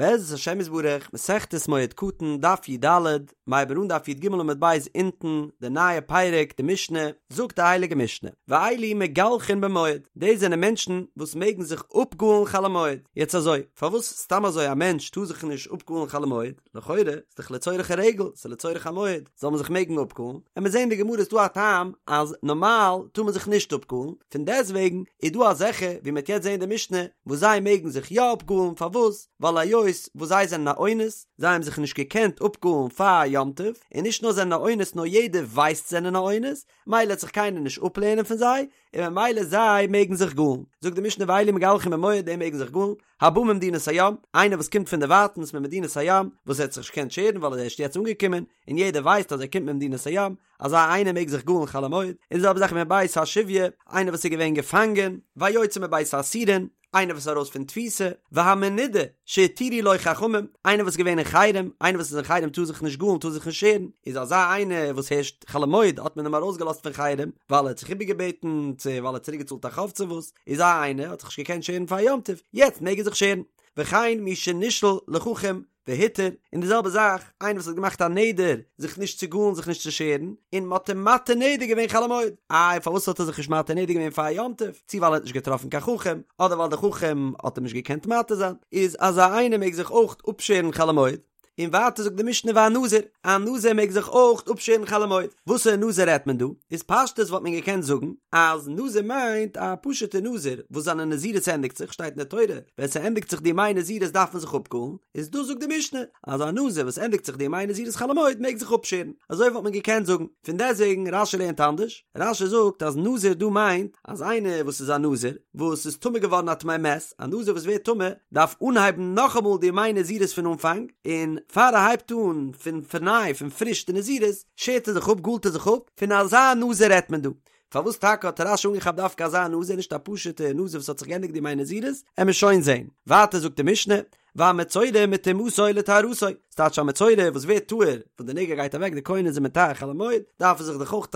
בעזרת השם יתברך, מסכת מועד קטן, דף י"ד, מ'הייבן אן דף י"ג עמוד ב' אונטן, די נייע פרק, די משנה, זאגט די הייליגע משנה, ואלו מגלחין במועד, דאס זענען מענטשן וואס מעגן זיך אפגאלן חול המועד, יעצט אזוי, פארוואס סתם אזוי א מענטש טאר זיך נישט אפגאלן חול המועד? לכאורה איז דאך לצורך הרגל, ס'איז לצורך המועד, זאל מען זיך מעגן אפגאלן, און מיר זעהן אין די גמרא איז דא א טעם אז נארמאל טאר מען זיך נישט אפגאלן, פון דעסטוועגן איז דא אזעלכע ווי מ'העט יעצט זעהן אין די משנה וואס זיי מעגן זיך יא אפגאלן, פארוואס? ווייל היות וואס זיי זענען א אונס, זיי האבן זיך נישט געקענט אפגאלן פאר יום טוב, און נישט נאר זענען א אונס נאר יעדער ווייסט זענען א אונס, מילא העט זיך קיינער נישט אפלערנען פון זיי, און ממילא זיי מעגן זיך גאלן. זאגט די משנה ואלו מגלחין במועד די מעגן זיך גאלן, הבא ממדינת הים, איינער וואס קומט פון דערווייטנס ממדינת הים, וואס ער האט זיך נישט געקענט שערן ווייל ער איז ערשט יעצט אנגעקומען, און יעדער ווייסט אז ער קומט ממדינת הים, אזא איינער מעג זיך גאלן חול המועד, און די זעלבע זאך מבית השביה, איינער וואס איז געווען געפאנגען, והיוצא מבית האסורין, איינער וואס איז ארויס פון תפיסה, והמנודה שהתירו לו חכמים, איינער וואס איז געווען אין חרם, איינער וואס איז אין חרם טאר זיך נישט גאלן טאר זיך נישט שערן, איז אזא איינער וואס הערשט חול המועד האט מען אים ארויסגעלאזט פון חרם, ווייל ער האט זיך איבערגעבעטן, צו ווייל ער האט צוריק געצאלט א חוב צו וואס, איז אזא איינער האט זיך נישט געקענט שערן פאר יום טוב, יעצט מעג ער זיך שערן. וכן מי שנשאל לחכם והותר, און די זעלבע זאך איינער וואס האט געמאכט א נדר זיך נישט צו גאלן זיך נישט צו שערן, און מ'האט אים מתיר נדר געווען חול המועד, איי פארוואס האט ער זיך נישט מתיר נדר געווען פאר יום טוב, צו ווייל ער האט נישט געטראפן קיין חכם, אדער ווייל די חכם האט אים נישט געקענט מתיר זיין, איז אזא איינער מעג זיך אויך אפשערן חול המועד. און ווייטער זאגט די משנה והנזיר, א נזיר מעג זיך אויך אפשערן חול המועד, וואסערע נזיר רעדט מען דא? איז פשטות וואלט מען געקענט זאגן אז נזיר מיינט א פשוטע נזיר וואס זיינע נזירות ענדיגט זיך, שטייט אין די תורה ווען ס'ענדיגט זיך די ימי נזירות דארף מען זיך אפגאלן, איז דא זאגט די משנה אז א נזיר וואס ענדיגט זיך די ימי נזירות חול המועד מעג זיך אפשערן, אזוי וואלט מען געקענט זאגן, פון דעסטוועגן רש"י לערנט אנדערש, רש"י זאגט אז נזיר דא מיינט אז איינער וואס איז א נזיר וואס איז טמא געווארן א טמא מת, א נזיר וואס ווערט טמא דארף אנהייבן נאכאמאל די ימי נזירות פון אנפאנג, און פאר ער הייבט אן פון פארניי פון פריש די נזירות, שערט ער זיך אפ, גאלט ער זיך אפ, פון אזא נזיר רעדט מען דא. פארוואס טאקע האט רש"י אנגעכאפט דווקא אזא נזיר נישט א פשוטע נזיר וואס האט זיך געענדיגט די ימי נזירות, עמיר שוין זען. ווייטער זאגט די משנה, והמצורע מטומאתו לטהרתו, ס'טייטש א מצורע וואס ווערט טהור, וואס די נגע גייט אוועק די כהן איז אים מטהר חול המועד, דארף ער זיך דאך אויך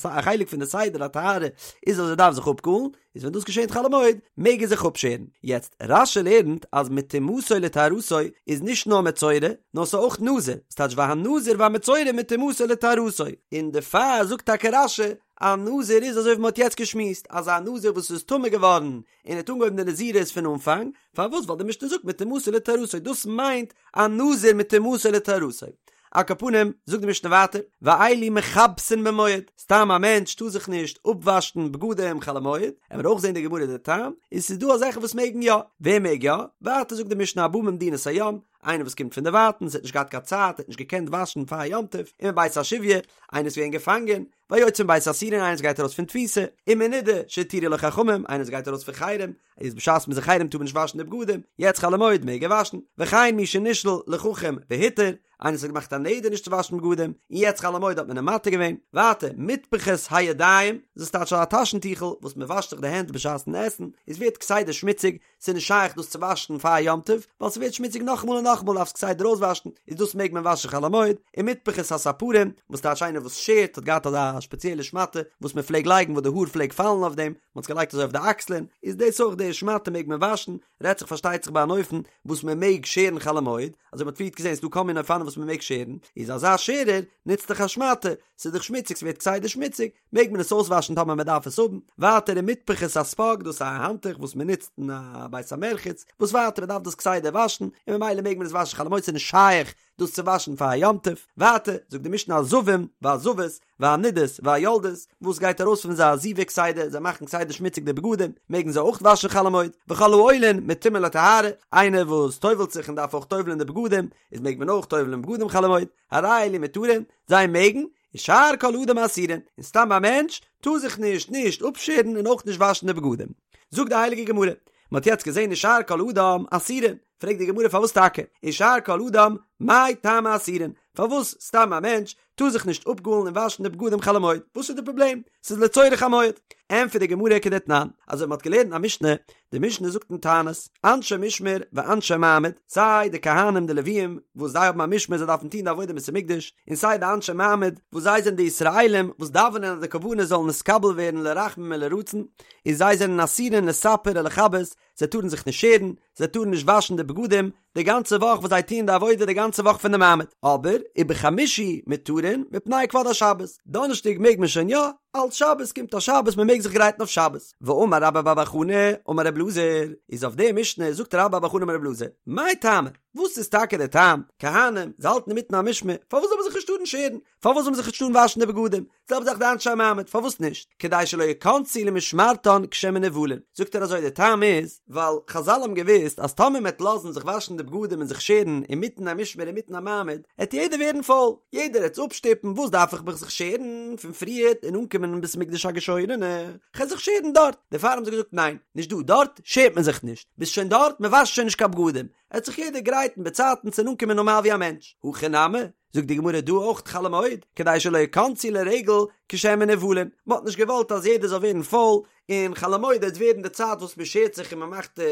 א חלק פון די סדר הטהרה איז אז ער דארף זיך אפגאלן, איז ווען דאס געשענט חול המועד מעג ער זיך אפשערן. יעצט רש"י לערנט אז מטומאתו לטהרתו איז נישט נאר מצורע נאר ס'איז אויך נזיר, ס'טייטש והנזיר והמצורע מטומאתו לטהרתו, און דערפאר זאגט טאקע רש"י א נזיר איז אזוי ווי מ'האט יעצט געשמועסט אז א נזיר וואס איז טמא געווארן און האט אנגעהויבן די נזירות פון אנפאנג, פארוואס ווייל די משנה זאגט מטומאתו לטהרתו דאס מיינט א נזיר מטומאתו לטהרתו. על כל פנים, זאגט די משנה ווייטער, ואלו מכבסין במועד, סתם א מענטש טאר זיך נישט אפוואשן בגדים חול המועד, עמיר אויך זען די גמרא די טעם, און ס'איז דא אזעלכע וואס מעגן יא, ווער מעג יא? ווייטער זאגט די משנה הבא ממדינת הים, איינער וואס קומט פון דערווייטנס האט נישט געהאט קיין צייט, האט נישט געקענט וואשן פאר יום טוב, ומבית השביה, איינער איז געווען געפאנגען, והיוצא מבית האסורין איינער וואס גייט ארויס פון תפיסה, ומנודה שהתירו לו חכמים, איינער וואס גייט ארויס פון חרם, איז בשעת מ'איז אין חרם טאר מען נישט וואשן די בגדים, יעצט חול המועד מעג ער וואשן, וכן מי שנשאל לחכם והותר, איינער וואס האט געמאכט א נדר נישט צו וואשן בגדים, און יעצט חול המועד האט מען אים מתיר געווען, ווייטער, מטפחות הידיים, דאס טייטש א טאשן טיכל וואס מען וואשט זיך די הענט בשעת'ן עסן, עס ווערט כסדר שמוציג, ס'איז נישט שייך דאס צו וואשן פאר יום טוב, ווייל ס'ווערט שמוציג נאכאמאל און נאכאמאל דארפסט כסדר אויסוואשן, איז דאס מעג מען וואשן חול המועד, ומטפחות הספרים, וואס טייטש איינער וואס שערט האט געהאט אזא שפעציעלע שמאטע וואס מען פלעג לייגן וואס די האר פלעג פאלן אויף דעם, מען האט עס געלייגט אזוי אויף די אקסלען, איז דאס אויך די שמאטע מעג מען וואשן, רעדט זיך פארשטייט זיך ביי אן אופן וואס מען מעג שערן חול המועד, אזוי מען האט פריערט געזען ס'דא כל מיני אופנים וואס מען מעג שערן, איז אזא שערער נוצט דאך א שמאטע, ס'איז דאך שמוציג ס'ווערט כסדר שמוציג, מעג מען עס אויסוואשן טאמער מען דארף עס האבן, ווייטער ומטפחות הספוג דאס איז א האנטוך וואס מען נוצט אין א בית המרחץ, וואס ווייטער מען דארף דאס כסדר וואשן, און ממילא מעג מען עס וואשן חול המועד ס'איז נישט שייך דאס צו וואשן פאר א יום טוב, ווייטער זאגט די משנה הזבים והזבות והנדות והיולדות, וואס גייט ארויס פון זיי א זיבה כסדר, זיי מאכן כסדר שמוציג די בגדים, מעגן זיי אויך וואשן חול המועד, וכל העולין מטומאה לטהרה, איינער וואס טובל'ט זיך און דארף אויך טובל'ען די בגדים, איז מעג מען אויך טובל'ען בגדים חול המועד, הרי אלו מותרין, זיי מעגן, ושאר כל אדם אסורין, און סתם א מענטש טאר זיך נישט נישט אפשערן און אויך נישט וואשן די בגדים. זאגט די הייליגע גמרא, מען האט יעצט געזען ושאר כל אדם אסורין, פרעגט די גמרא פארוואס טאקע ושאר כל אדם מאי טעמא אסורין, פארוואס סתם א מענטש טאר זיך נישט אפגאלן און וואשן די בגדים חול המועד, וואס איז די פראבלעם? ס'איז לצורך המועד. ענטפערט די גמרא כדתנן, אזוי ווי מ'האט געלערנט א משנה, די משנה זאגט אין תענית, אנשי משמר ואנשי מעמד, סיי די כהנים די לוויים וואס זיי האבן א משמר זיי דארפן טון די עבודה אין בית המקדש, און סיי די אנשי מעמד וואס זיי זענען די ישראלים וואס דאווענען אז די קרבנות זאלן נתקבל ווערן לרחמים ולרצון, און זיי זענען אסורין לספר ולכבס, זיי טארן זיך נישט שערן, זיי טארן נישט וואשן די בגדים, די גאנצע וואך וואס זיי טוען די עבודה די גאנצע וואך פון די מעמד, אבער ובחמישי מותרין מפני כבוד השבת, דאנערשטאג מעג מען שוין יא, אלץ שבת קומט א שבת מען מעג זיך גרייטן אויף שבת, ואמר רבה בר בר חנה אמר רב אלעזר, איז אויף די משנה זאגט רבה בר בר חנה אמר רב אלעזר, מאי טעמא, וואס איז טאקע די טעם, כהנים, זיי האלטן אינמיטן א משמר, פארוואס זאל מען זיך נישט טארן שערן, פארוואס זאל מען זיך נישט טארן וואשן די בגדים, זעלבע זאך די אנשי המעמד, פארוואס נישט? כדי שלא יכנסו למשמרתן כשהן מנוולין. זאגט ער אזוי, די טעם איז, ווייל חזל האבן געוואוסט אז טאמער מ'עט לאזן זיך וואשן די בגדים און זיך שערן אינמיטן א משמר אינמיטן א מעמד, עט יעדער ווערן פויל, יעדער עט אפשטופן, וואס דארף איך מיך זיך שערן פון פריערט און אנקומען אין בית המקדש א געשוירענע, כ'על זיך שערן דארט. דערפאר האבן זיי געזאגט ניין, נישט דא, דארט שערט מען זיך נישט, ביסט שוין דארט, מ'וואשט שוין נישט קיין בגדים, עט זיך יעדער גרייטן באצייטנס און אנקומען נארמאל ווי א מענטש. הכא נמי, זאגט די גמרא דא אויך חול המועד, כדי שלא יכנסו לרגל כשהן מנוולין, מען האט נישט געוואלט אז יעדער זאל ווערן פויל, און חול המועד וועט ווערן די צייט וואס מען שערט זיך און מען מאכט די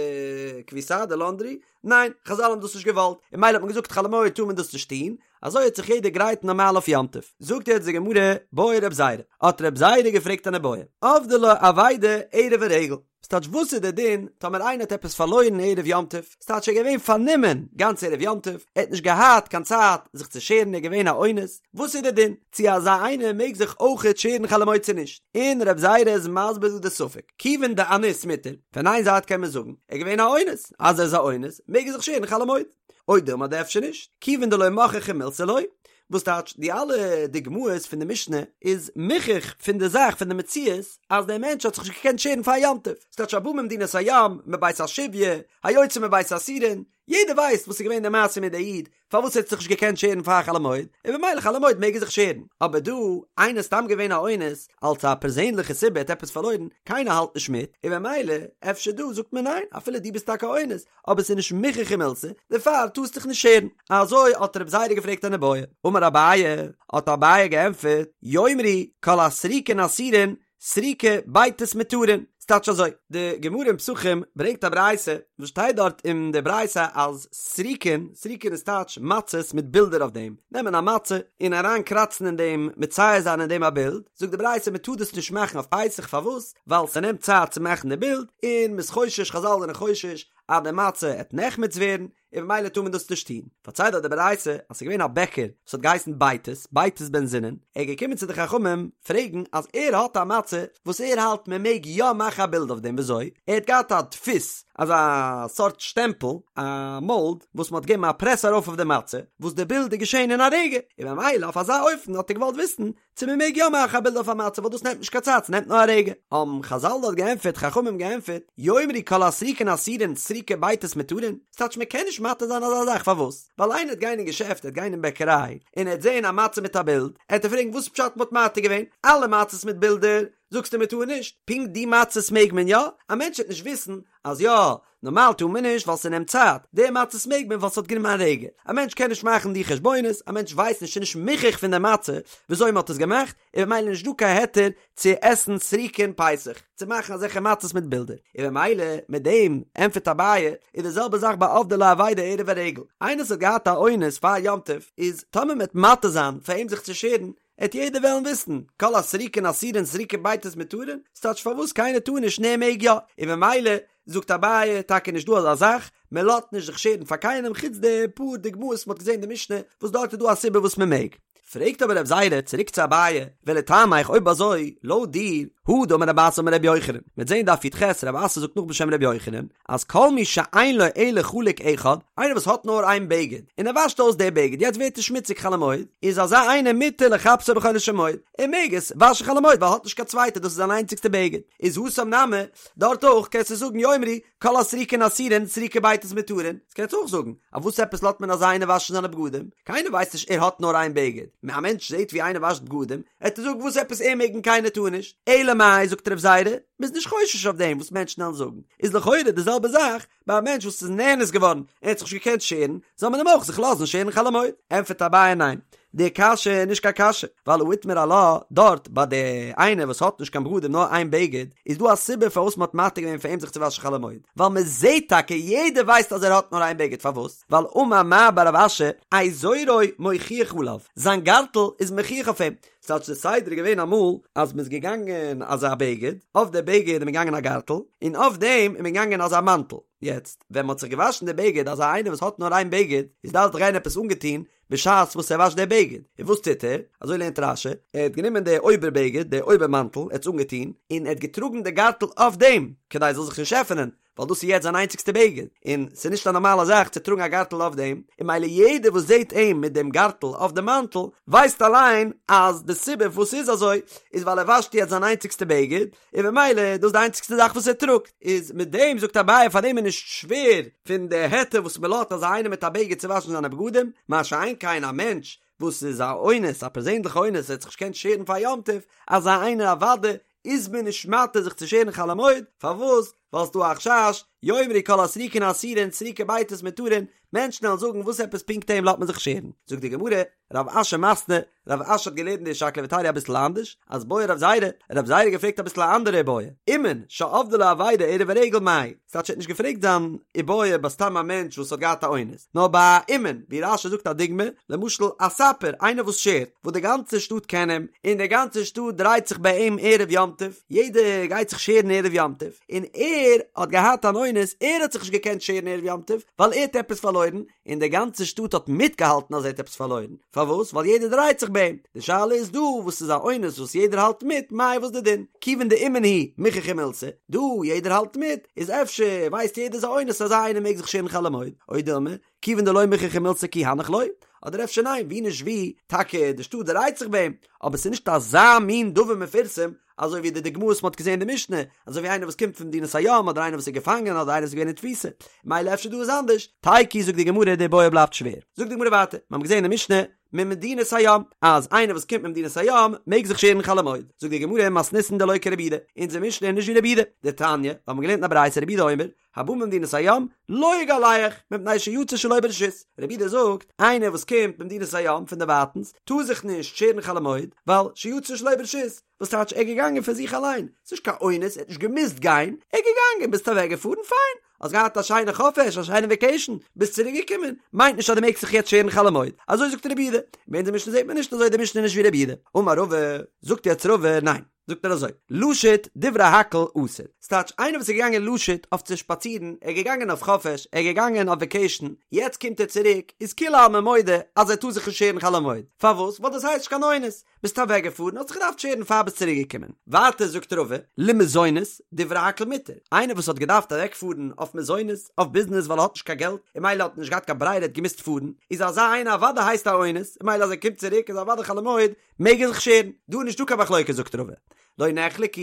כביסה, די לאנדרי, ניין, חזל האבן דאס נישט געוואלט, און ממילא האט מען געזאגט חול המועד טאר מען דאס נישט טון, אזוי וועט זיך יעדער גרייטן נארמאל אויף יום טוב. זאגט יעצט די גמרא, בעי רב זירא, האט רב זירא געפרעגט אן איבעיא, אבדה לו אבידה ערב הרגל, ס'טייטש וואס איז די דין טאמער איינער האט עפעס פארלוירן ערב יום טוב, ס'טייטש ער איז געווען פארנומען גאנץ ערב יום טוב, ער האט נישט געהאט קיין צייט זיך צו שערן ער איז געווען א אונס, וואס איז די דין צו אזא איינער מעג זיך אויכעט שערן חול המועד צו נישט, און רב זירא איז מסביר דא די ספק, כיוון דאניס מותר, פון איין זייט קען מען זאגן ער איז געווען א אונס, אז ער איז א אונס מעג ער זיך שערן חול המועד, או דילמא אדער אפשר נישט, כיוון דלא מוכחא מילתא לא, וואס טייטש די אלע דוגמאות פון די משנה איז מוכח פון די זאך פון די מציאות אז דער מענטש האט זיך נישט געקענט שערן פאר יום טוב, ס'טייטש הבא ממדינת הים, מבית השביה, היוצא מבית האסורין, יעדער ווייסט וואס איז געווען די מעשה מיט די איד פארוואס ער האט זיך נישט געקענט שערן פאר חול המועד, און במילא חול המועד מעג ער זיך שערן, אבער דא איינער איז סתם געווען א אונס אלס א פערזענליכע סיבה ער האט עפעס פארלוירן, קיינער האלט נישט מיט, און במילא אפשר דא זאגט מען ניין אפילו דו ביסט טאקע א אונס, אבער ס'איז נישט מוכחא מילתא, דערפאר טארסט דיך נישט שערן. אזוי האט רב זירא געפרעגט אן איבעיא. אמר אביי, האט אביי געענטפערט, יאמרו כל הסריקין אסורין, סריקי בייתוס מותרין. ס'טייטש אזוי, די גמרא אין פסחים ברענגט א ברייתא, וואס שטייט דארט אין די ברייתא אז סריקין, סריקין איז טייטש מצות מיט בילדער אויף דעם, נעמען א מצה און אריין קראצן אין דעם, מצייר זיין אין דעם א בילד, זאגט די ברייתא מ'טאר דאס נישט מאכן אויף פסח, פארוואס? ווייל ס'נעמט צייט צו מאכן די בילד, און מ'איז חושש, חזל זענען חושש, אז די מצה עט נחמץ ווערן, און במילא טאר מען דאס נישט טון. פארציילט דארט די ברייתא אז ס'איז געווען א בעקער וואס האט געהייסן בייתוס, בייתוס בן זונין, ער איז געקומען צו די חכמים פרעגן אז ער האט א מצה וואס ער האלט מען מעג יא מאכן א בילד אויף דעם, וויאזוי? ער האט געהאט א דפוס, אזא סארט שטעמפל, א מאלד, וואס מ'האט געגעבן א פרעס ארויף אויף די מצה, וואס די בילד איז געשען אין א רגע, און במילא אויף אזא אופן האט ער געוואלט וויסן צו מען מעג יא מאכן א בילד אויף א מצה ווייל דאס נעמט נישט קיין צייט ס'נעמט נאר א רגע, האבן חזל דארט געענטפערט חכמים געענטפערט, יאמרו כל הסריקין אסורין סריקי בייתוס מותרין, ס'טייטש מען קען נישט מתיר זיין אזא זאך פארוואס? ווייל איינער עט גיין אין געשעפט עט גיין אין בעקעריי און עט זעהן א מצה מיט א בילד עט ער פרעגן וואס פשט מ'האט מתיר געווען אלע מצות מיט בילדער זאגסטו מ'טאר נישט פונקט די מצות מעג מען יא? א מענטש וועט נישט וויסן אז יא נארמאל טאר מען נישט ווייל ס'נעמט צייט, די מצות מעג מען ווייל ס'האט גענומען א רגע, א מענטש קען נישט מאכן די חשבונות, א מענטש ווייסט נישט ס'נישט מוכח פון די מצה וויאזוי מ'האט עס געמאכט, און במילא נישט דא קיין היתר צו עסן סריקין פסח, צו מאכן אזעלכע מצות מיט בילדער, און במילא מיט דעם ענטפערט אביי, איז די זעלבע זאך ביי אבדה לו אבידה ערב הרגל, איינער וואס האט געהאט א אונס פאר יום טוב, איז טאמער מ'וועט מתיר זיין פאר אים זיך צו שערן, עט יעדער וועלן וויסן, כל הסריקין אסורין סריקי בייתוס מותרין, ס'טייטש פארוואס קיינער טאר נישט און ער מעג יא, און במילא זאגט אביי טאקע נישט דא אזא זאך, מען לאזט נישט זיך שערן פאר קיינעם חוץ די פאר דוגמאות מ'האט געזען אין די משנה וואס דארט איז דא א סיבה וואס מען מעג. פרעגט אבער רב זירא צוריק צו אביי, ולטעמיך אויב אזוי לויט דיר, הא דאמר רב אסי אמר רבי יוחנן, מ'וועט זען דף י"ח רב אסי זאגט נאך בשם רבי יוחנן, אז כל מי שאין לו אלא חלוק אחד, איינער וואס האט נאר איין בגד, און ער וואשט אויס די בגד, יעצט ווערט עס שמוציג חול המועד, איז אזא איינער מותר לכבסו בחולו של מועד, ער מעג עס וואשן חול המועד ווייל ער האט נישט קיין צווייטע דאס איז זיין איינציגסטע בגד, איז התם נמי, דארט אויך קענסטו זאגן יאמרו כל הסריקין אסורין סריקי בייתוס מותרין, דאס קענסטו אויך זאגן, אויף וואס עפעס לאזט מען אזא איינער וואשן זיינע בגדים, קיינער ווייסט נישט ער האט נאר איין בגד, א מענטש זעט ווי איינער וואשט בגדים, עט ער זאגן וואס עפעס ער מעג און קיינער טאר נישט, אלא מאי זאגט רב זירא, מ'איז נישט חושש אויף דעם וואס מענטשן וועלן זאגן, איז לכאורה די זעלבע זאך ביי א מענטש וואס איז נאנס געווארן און האט זיך נישט געקענט שערן, זאל מען אים אויך זיך לאזן שערן חול המועד? ענטפערט אביי ניין, די קשיא איז נישט קיין קשיא, ווייל הא איתמר עלה, דארט ביי די איינער וואס האט נישט קיין בגדים נאר איין בגד, איז דא א סיבה פארוואס מ'האט מתיר געווען פאר אים זיך צו וואשן חול המועד, ווייל מ'זעט טאקע יעדער ווייסט אז ער האט נאר איין בגד, פארוואס? ווייל אמר מר בר רב אשי, איזורו מוכיח עליו, זיין גארטל איז מוכיח אויף אים, ס'טייטש די סדר איז געווען אמאל אז מ'איז געגאנגען אזא בגד, אויף די בגד איז מען געגאנגען א גארטל, און אויף דעם איז מען געגאנגען אזא מאנטל, יעצט ווען מ'האט זיך געוואשן די בגד אזא איינער וואס האט נאר איין בגד, איז דארף דאך גיין עפעס אנגעטון בשעת וואס ער וואשט די בגד, און וואס טוט ער? אזוי לערנט רש"י, ער האט גענומען די אויבער בגד, די אויבער מאנטל, ער האט עס אנגעטון, און ער האט געטראגן די גארטל אויף דעם, כדי עס זאל זיך נישט עפענען, ווייל דאס איז יעצט זיין איינציגסטע בגד, און ס'איז נישט א נארמאלע זאך צו טראגן א גארטל אויף דעם, און ממילא יעדער וואס זעט אים מיט דעם גארטל אויף די מאנטל, ווייסט אליין אז די סיבה פארוואס ס'איז אזוי, איז ווייל ער וואשט יעצט זיין איינציגסטע בגד, און ממילא איז דאס די איינציגסטע זאך וואס ער טראגט, איז מיט דעם זאגט אביי פאר דעם איז נישט שווער פון די היתר וואס מען לאזט אזא איינער מיט א בגד צו וואשן זיינע בגדים, מה שאין כן א מענטש וואס איז א אונס, א פערזענליכע אונס, ער האט זיך נישט געקענט שערן פאר יום טוב, אזא איינער אוודאי איז מען נישט מתיר זיך צו שערן חול המועד, פארוואס? ווייל ס'דא א חשש, יאמרו כל הסריקין אסורין סריקי בייתוס מותרין, מענטשן וועלן זאגן וואס עפעס פונקט אים לאזט מען זיך שערן, זאגט די גמרא, רב אשי מתני, רב אשי האט געלערנט די שקלא וטריא אביסל אנדערש, אז בעי רב זירא, רב זירא האט געפרעגט אביסל א אנדערע איבעיא, אומן שאבדה לו אבידה ערב הרגל מהו, ס'טייטש ער האט נישט געפרעגט זיין איבעיא ביי סתם א מענטש וואס האט געהאט א אונס, נאר ביי א אומן, ווי רש"י זאגט א דוגמא, למשל א ספר, איינער וואס שערט, וואס די גאנצע שטאט קען אים, און די גאנצע שטאט דרייט זיך ביי אים ערב יום טוב, יעדער גייט זיך שערן ערב יום טוב, און ער האט געהאט אן אונס, ער האט זיך נישט געקענט שערן ערב יום טוב, ווייל ער האט עפעס פארלוירן, און די גאנצע שטאט האט מיטגעהאלטן אז ער האט עפעס פארלוירן, פארוואס? ווייל יעדער דרייט זיך ביי אים, די שאלה איז דא וואס איז א אונס וואס יעדער האלט מיט, מאי וואס די דין? כיוון דאומן הוא מוכחא מילתא, דא יעדער האלט מיט, איז אפשר ווייסט יעדער ס'איז א אונס אזא איינער מעג זיך שערן חול המועד, או דילמא, כיוון דלא מוכחא מילתא כי הנך לא, אדער אפשר ניין, ווי נישט ווי, טאקע די שטאט דרייט זיך ביי אים, אבער ס'איז נישט אזא מין דבר מפורסם אזוי ווי די דוגמאות וואס מ'האט געזען אין די משנה, אזוי ווי איינער וואס קומט פון מדינת הים אדער איינער וואס איז געפאנגען אדער איינער וואס איז געווען אין תפיסה, מילא אפשר דא איז אנדערש, תיקו זאגט די גמרא די בעיא בלייבט שווער. זאגט די גמרא ווייטער, מיר האבן געזען אין די משנה ממדינת הים, אז איינער וואס קומט ממדינת הים מעג זיך שערן חול המועד, זאגט די גמרא מתניתין דלא כרבי יהודה, אונזער משנה איז נישט ווי רבי יהודה, דתניא, מיר האבן געלערנט אין א ברייתא רבי יהודה אומר, הבא ממדינת הים לא יגלח מפני שיצא שלא ברשות, רבי יהודה זאגט, איינער וואס קומט ממדינת הים פון דערווייטנס טאר זיך נישט שערן חול המועד, ווייל שיצא שלא ברשות, וואס טייטש ער איז געגאנגען פון זיך אליין, ס'איז נישט קיין אונס, ער האט נישט געמוזט גיין, ער איז געגאנגען, ביסט אוועק געפארן, פיין, האסט געהאט א שיינע חופש, א שיינע וועקעישן, ביסט צוריק געקומען, מיינט נישט אז דו מעגסט זיך יעצט שערן חול המועד, אזוי זאגט רבי יהודה, אין אונזער משנה זעט מען נישט אזוי, די משנה איז נישט ווי רבי יהודה, אמר רבא, זאגט יעצט רבא, ניין. זאגט ער אזוי, לשוט דברי הכל אסור, ס'טייטש איינער וואס איז געגאנגען לשוט אויף צו שפאצירן, ער איז געגאנגען אויף חופש, ער איז געגאנגען אויף וועקעישן, יעצט קומט ער צוריק, איז כולי עלמא מודה אז ער טאר זיך נישט שערן חול המועד, פארוואס? ווייל דאס הייסט נישט קיין אונס, ביסט אוועק געפארן, האסט זיך געדארפט שערן פאר ביסט צוריק געקומען. ווייטער זאגט רבא, למזונות, דברי הכל מותר, איינער וואס האט געדארפט אוועק פארן אויף מזונות, אויף ביזנעס ווייל ער האט נישט קיין געלט, און מילא האט ער נישט געהאט קיין ברירה ער האט געמוזט פארן, איז אזא איינער אוודאי הייסט א אונס, און מילא אז ער קומט צוריק איז אוודאי חול המועד, מעג ער זיך שערן? דא איז נישטא קיין מחלוקת זאגט רבא. לא נחלקו,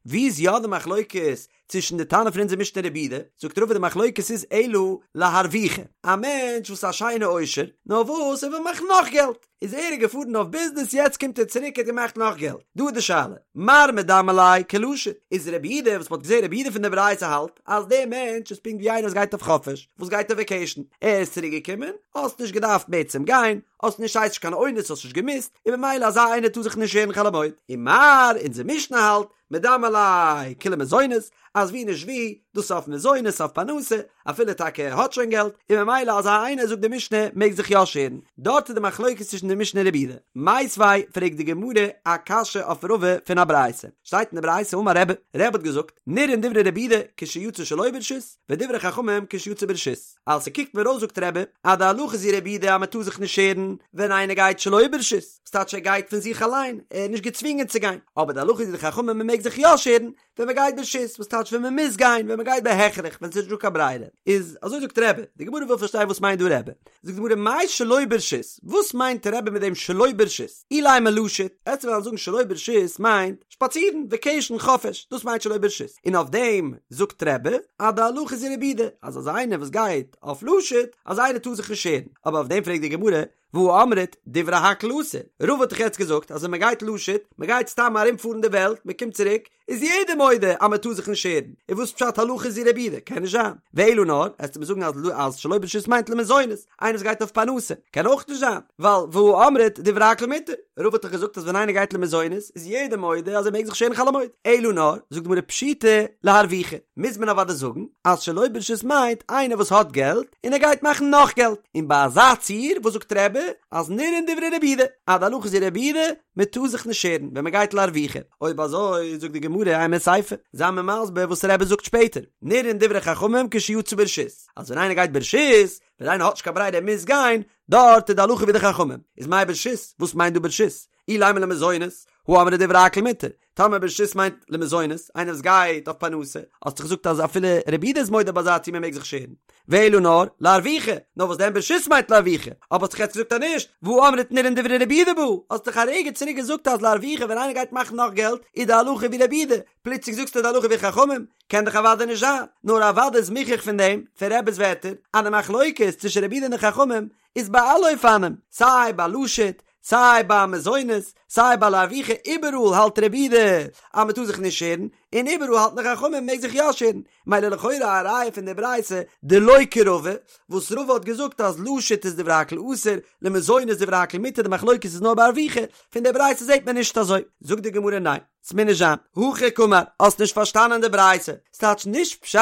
ווי איז יא די מחלוקת צווישן די תנא פון אונזער משנה רבי יהודה? זאגט רבא די מחלוקת איז אלא להרוויחי, א מענטש וואס איז א שיינע עושר, נאר וואס ער וויל מאכן נאך געלט, איז ער איז געפארן אויף ביזנעס יעצט קומט ער צוריק ער האט געמאכט נאך געלט, דא איז די שאלה, מר מדמי ליה כלשוט, איז רבי יהודה וואס מען האט געזען רבי יהודה פון די ברייתא האלט אז דער מענטש איז פונקט ווי איינער וואס גייט אויף חופש, וואס גייט אויף וועקעישן, ער איז צוריק געקומען, האסט נישט געדארפט בעצם גיין, האסט נישט ס'הייסט נישט קיין אונס האסט נישט געמוזט, און ממילא אזא איינער טאר זיך נישט שערן חול המועד. ומר, אונזער משנה האלט, מדמי ליה כלמזונות, אז ווי נישט ווי, דאס איז אויף מזונות אויף פרנסה, אפילו טאקע ער האט שוין געלט, און ממילא אזא איינער זאגט די משנה מעג זיך יא שערן. דארט איז די מחלוקת צווישן די משנה און רבי יהודה. מיתיבי, פרעגט די גמרא א קשיא אויף רבא פון א ברייתא. שטייט אין די ברייתא אמר רבי, רבי האט געזאגט, נראין דברי רבי יהודה כשיצא שלא ברשות, ודברי חכמים כשיצא ברשות. אז ס'קוקט מיר אויס זאגט רבי אז די הלכה איז ווי רבי יהודה אז מ'טאר זיך נישט שערן ווען איינער גייט שלא ברשות, ס'טייטש ער גייט פון זיך אליין, ער איז נישט געצווינגען צו גיין, אבער די הלכה איז ווי די חכמים מ'מעג זיך יא שערן ווען מ'גייט ברשות, וואס טייטש ווען מ'מוז גיין, ווען מ'גייט בהכרח, ווען ס'איז נישט דא קיין ברירה, איז אזוי זאגט רבי, די גמרא וויל פארשטיין וואס מיינט דא רבי, זאגט די גמרא מאי שלא ברשות, וואס מיינט רבי מיט דעם שלא ברשות, אילימא לשוט, עסטו וועלן זאגן שלא ברשות מיינט שפאצירן, וועקעישן, חופש, דאס מיינט שלא ברשות, און אויף דעם זאגט רבי אז די הלכה איז ווי רבי יהודה, אז אזא איינער וואס גייט אויף לשוט, אזא איינער טאר זיך נישט שערן, אבער אויף דעם פרעגט די גמרא, והא אמרת דברי הכל אסור, רבא האט דאך יעצט געזאגט אז ווען מען גייט לשוט, מען גייט סתם ארום פארן די וועלט, מען קומט צוריק, איז יעדער מודה אז מען טאר זיך נישט שערן, און וואס פשט הלכה איז ווי רבי יהודה? קען נישט זיין. ואלא נאר, עסטו מיר זאגן אז אז שלא ברשות מיינט למזונות, איינער וואס גייט אויף פרנסה, קען אויך נישט זיין, ווייל והא אמרת דברי הכל מותר, רבא האט דאך געזאגט אז ווען איינער גייט למזונות איז יעדער מודה אז ער מעג זיך שערן חול המועד, אלא נאר, זאגט די גמרא פשיטא להרוויחי, מוז מען אוודאי זאגן אז שלא ברשות מיינט איינער וואס האט געלט און ער גייט מאכן נאך געלט, און ביי אזא ציור וואס זאגט רבי אז נראין דברי רבי יהודה, אז די הלכה איז ווי רבי יהודה, מען טאר זיך נישט שערן ווען מען גייט להרוויחי, אויב אזוי זאגט די גמרא אימא סיפא, זיי מיר מסביר וואס רבי זאגט שפעטער, נראין דברי חכמים כשיצא ברשות, אז ווען איינער גייט ברשות, ווען איינער האט נישט קיין ברירה ער מוז גיין, דארט איז די הלכה ווי די חכמים, איז מאי ברשות, וואס מיינט דא ברשות? אילימא למזונות, הא אמרת דברי הכל מותר, טאמער ברשות מיינט למזונות, איינער וואס גייט אויף פרנסה, האסט דאך געזאגט אז אפילו רבי יהודה איז מודה ביי אזא ציור מען מעג זיך שערן. ואלא נאר, להרוויחי, נאר וואס דען ברשות מיינט להרוויחי, אבער האסט דאך יעצט געזאגט אז נישט, והא אמרת נראין דברי רבי יהודה בה, האסט דאך א רגע צוריק געזאגט אז להרוויחי ווען איינער גייט מאכן נאך געלט איז די הלכה ווי רבי יהודה, פלוצלינג זאגסטו די הלכה ווי חכמים? קען דאך אוודאי נישט זיין, נאר אוודאי איז מוכח פון דעם, פון רבי'ס ווערטער, אז די מחלוקת צווישן רבי יהודה און די חכמים איז ביי אלע אופנים, סיי ביי לשוט, סיי ביי מזונות, סיי ביי להרוויחי, איבעראל האלט רבי יהודה אז מען טאר זיך נישט שערן, און איבעראל האלטן די חכמים מען מעג זיך יא שערן, מילא לכאורה א ראיה פון די ברייתא דלא כרבא, וואס רבא האט געזאגט אז לשוט איז דברי הכל אסור, למזונות דברי הכל מותר, די מחלוקת איז נאר ביי הרוויחי, פון די ברייתא זעט מען נישט אזוי, זאגט די גמרא ניין. ס'מוז נישט זיין. הכי קאמר, האסט נישט פארשטאנען די ברייתא. ס'טייטש נישט פשט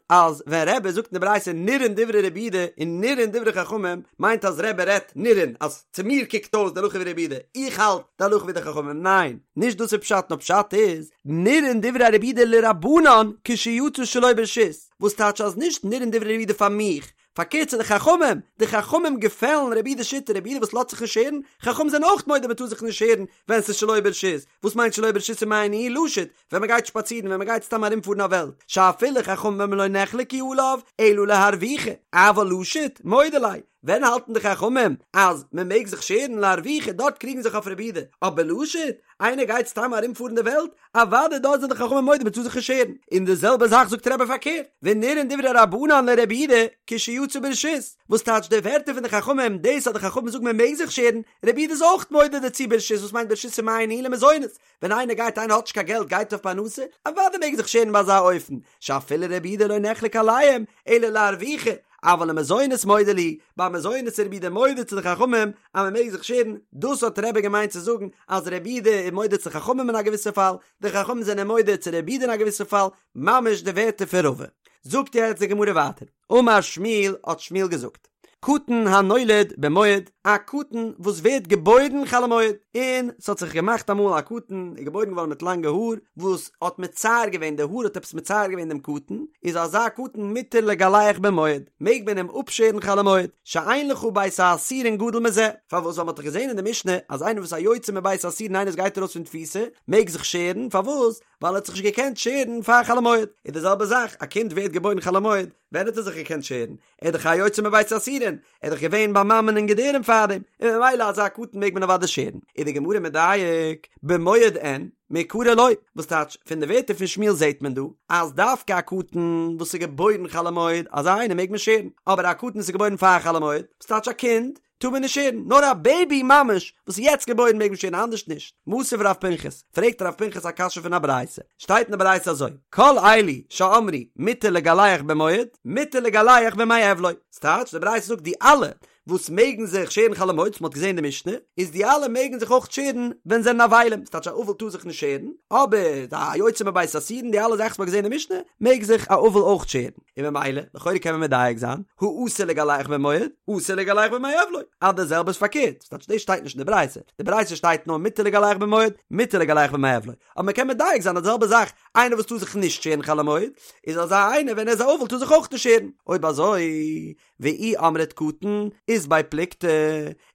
אז ווען רבי זאגט אין די ברייתא נראין דברי רבי יהודה און נראין דברי חכמים מיינט אז רבי רעדט נראין אז צו מיר קוקט אויס די הלכה ווי רבי יהודה, איך האלט די הלכה ווי די חכמים. ניין, נישט דאס איז פשט נאר פשט איז נראין דברי רבי יהודה לרבנן כשיצא שלא ברשות וואס טייטש אז נישט נראין דברי רבי יהודה פאר מיך פארקערט צו די חכמים, די חכמים געפעלן רבי יהודה'ס שיטה, רבי יהודה וואס לאזט זיך נישט שערן, חכמים זענען אויך מודה מען טאר זיך נישט שערן ווען ס'איז שלא ברשות, וואס מיינט שלא ברשות ומאי ניהו לשוט, ווען מען גייט שפאצירן, ווען מען גייט סתם ארומפארן א וועלט, שאפילו חכמים לא נחלקו עליו אלא להרוויחי, אבל לשוט, מודה ליה, ווען האלטן די חכמים אז מען מעג זיך שערן להרוויחי, דארט קריגן זיך אויף רבי יהודה, אבער לשוט, איינער גייט סתם ארומפארן די וועלט, אוודאי דארט זענען די חכמים מודה מ'טאר זיך נישט שערן, און די זעלבע זאך זאגט רבי פארקערט, ונראין דברי רבנן לרבי יהודה כשיצא ברשות, וואס טייטש די ווערטער פון די חכמים, דאס אז די חכמים זאגן מען מעג זיך שערן, רבי יהודה איז אויך מודה דערצו ברשות, וואס מיינט ברשות ומאי ניהו למזונות, ווען איינער גייט איינער האט נישט קיין געלט גייט אויף פרנסה, אוודאי מעג ער זיך שערן ביי אזא אופן, שאפילו רבי יהודה לא נחלק עליהם, אלא להרוויחי, אבל למזונות מודה להו, ביי מזונות איז רבי יהודה מודה צו די חכמים אז מען מעג זיך שערן, דאס האט רבי געמיינט צו זאגן אז רבי יהודה איז מודה צו חכמים אין א געוויסע פאל, די חכמים זענען מודה צו רבי יהודה אין א געוויסע פאל, ממש די ווערטער פון רבא. זאגט יעצט די גמרא ווייטער, אמר שמואל האט שמואל געזאגט, קטן הנולד במועד, א קטן וואס ווערט געבוירן חול המועד, און ס'האט זיך געמאכט אמאל א קטן איז געבוירן געווארן מיט לאנגע האר, וואס האט מצער געווען, די האר האט עפעס מצער געווען דעם קטן, איז אזא קטן מותר לגלח במועד, מעג מען אים אפשערן חול המועד, שאין לך בית האסורין גדול מזה, פארוואס ווייל מ'האט דאך געזען אין די משנה אז איינער וואס א יוצא מבית האסורין איינער וואס גייט ארויס פון תפיסה מעג זיך שערן, פארוואס? ווייל ער האט זיך נישט געקענט שערן פאר חול המועד, איז די זעלבע זאך, א קינד ווערט געבוירן חול המועד, ווען האט ער זיך געקענט שערן? ער איז דאך א יוצא מבית האסורין, ער איז דאך געווען ביי מאמען אין געדערים פארדעם, און ממילא אזא קטן מעג מען אוודאי שערן. איז די גמרא מדייק, במועד אין, מעיקרא לא, וואס טייטש, פון די ווערטער פון שמואל זעט מען דא, אז דווקא א קטן וואס איז געבוירן חול המועד, אזא איינער מעג מען שערן, אבער א קטן וואס איז געבוירן פאר חול המועד, וואס טייטש א קינד, טאר מען נישט שערן, נאר א בעיבי ממש וואס איז יעצט געבוירן מעג מען שערן אנדערש נישט. מתיב רב פנחס, פרעגט רב פנחס א קשיא פון א ברייתא, שטייט אין די ברייתא אזוי, כל אלו שאמרו מותר לגלח במועד, מותר לגלח בימי אבלו, ס'טייטש די ברייתא זאגט די אלע וואס מעגן זיך שערן חול המועד, וואס מ'האט געזען אין די משנה, איז די אלע מעגן זיך אויך שערן ווען זענען אבלים, ס'טייטש א אבל טאר זיך נישט שערן, אבער א יוצא מבית האסורין די אלע זאכן וואס מ'האט געזען אין די משנה, מעג זיך א אבל אויך שערן. און ממילא, לכאורה קען מען מדייק זיין, הא אסור לגלח במועד, אסור לגלח בימי אבלו, אז די זעלבע איז פארקערט, ס'טייטש דאס שטייט נישט אין די ברייתא, די ברייתא שטייט נאר מותר לגלח במועד, מותר לגלח בימי אבלו, אבער מען קען מדייק זיין אז די זעלבע זאך, איינער וואס טאר זיך נישט שערן חול המועד, איז אזא איינער ווען ער איז א אבל טאר זיך אויך נישט שערן, אויב אזוי, ואי אמרת קטן, אית ביה פלוגתא,